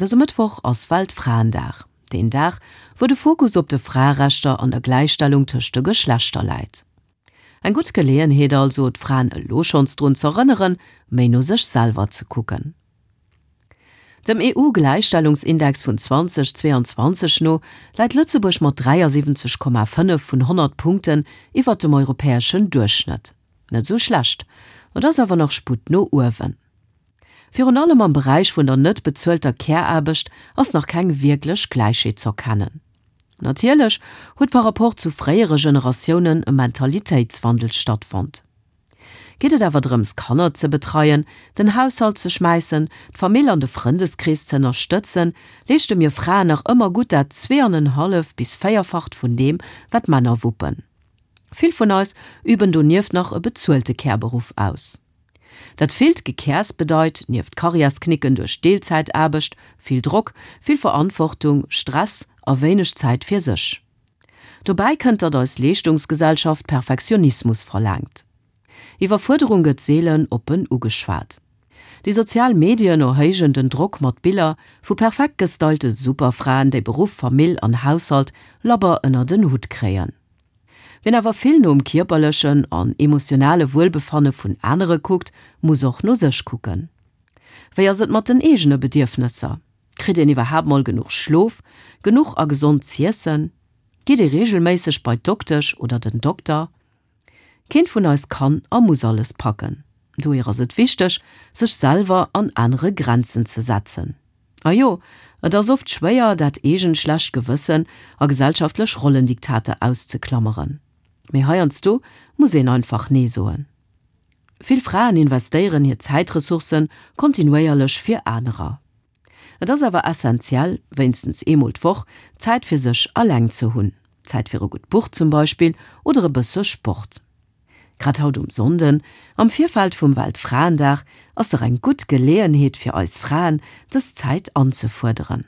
Dëse Mëttwoch ass Weltfraendag, deen Dag, wou de Fokus op de Fraerechter an der Gläichstellung tëscht de Geschlechter läit. Eng gutt Geleeënheet also, d'Fraen elo schonns drun z'erënneren, méi no sech selwer ze kucken. Dem EU-Gläichstellungsindex vun 2022 no läit Lëtzebuerg mat 73,5 vun 100 Punkten iwwert dem europäeschen Duerchschnëtt. Net esou schlecht, et ass awer nach Sputt no uewen. Virun allem am Beräich vun der net bezuelter Care-Aarbecht ass nach keng wierklech Gläichheet z'erkennen. Natierlech huet par rapport zu fréiere Generatiounen e Mentalitéitswandel stattfonnt. Geet et awer drëms Kanner ze betreien, den Haushalt ze schmäissen, d'Famill an de Frëndeskrees ze ënnerstëtzen, leeschte mir Fraen nach ëmmer gutt dat zweeanenhallef bis véierfacht vun deem, wat d'Männer wuppen. Vill vun eis üben donieft nach e bezuelte Care-Beruff aus. Dat villt Gekäers bedeit, nieft Karriärsknicken duerch Deelzäitaarbecht, vill Drock, vill Verantwortung, Stress a wéineg Zäit fir sech. Dobäi kënnt, datt eis Leeschtungsgesellschaft Perfektionismus verlaangt. Iwwerfuerderung gëtt seelen oppen ugeschwat. Déi sozial Medien erhéijen den Drock mat Biller vu perfekt gestylte Superfraen, déi Beruff, Famill an Haushalt labber ënnert en Hutt kréien. Wien awer vill nom kierperlechen an emotionale Wuelbefanne vun anere kuckt, muss och no sech kucken. Wéi ass et mat den eegene Bedierfnesser? Kritt een iwwerhaapt mol genuch Schlof, genuch a gesond z'iessen? Geet ee reegelméisseg bei d'Doktesch oder den Dokter? Keent vun eis kann a muss alles packen. Dohier ass et wichteg, sech selwer an anere Grenzen ze setzen. A jo, et ass oft schwéier, dat eegent schlecht Gewëssen a gesellschaftlech Rollendiktater auszeklammeren. Mee heiansdo muss een einfach Nee soen. Vill Fraen investéieren hir Zäitressourcen kontinuéierlech fir anerer. Et ass awer essentiell, wéinstens eemol d'Woch Zäit fir sech alleng ze hunn. Zäit fir e gutt Buch zum Beispill oder e bësse Sport. Grad haut um Sonnden, am Virfeld vum Weltfraendag, ass dach eng gutt Geleeënheet fir eis Fraen, dës Zäit anzefuerderen.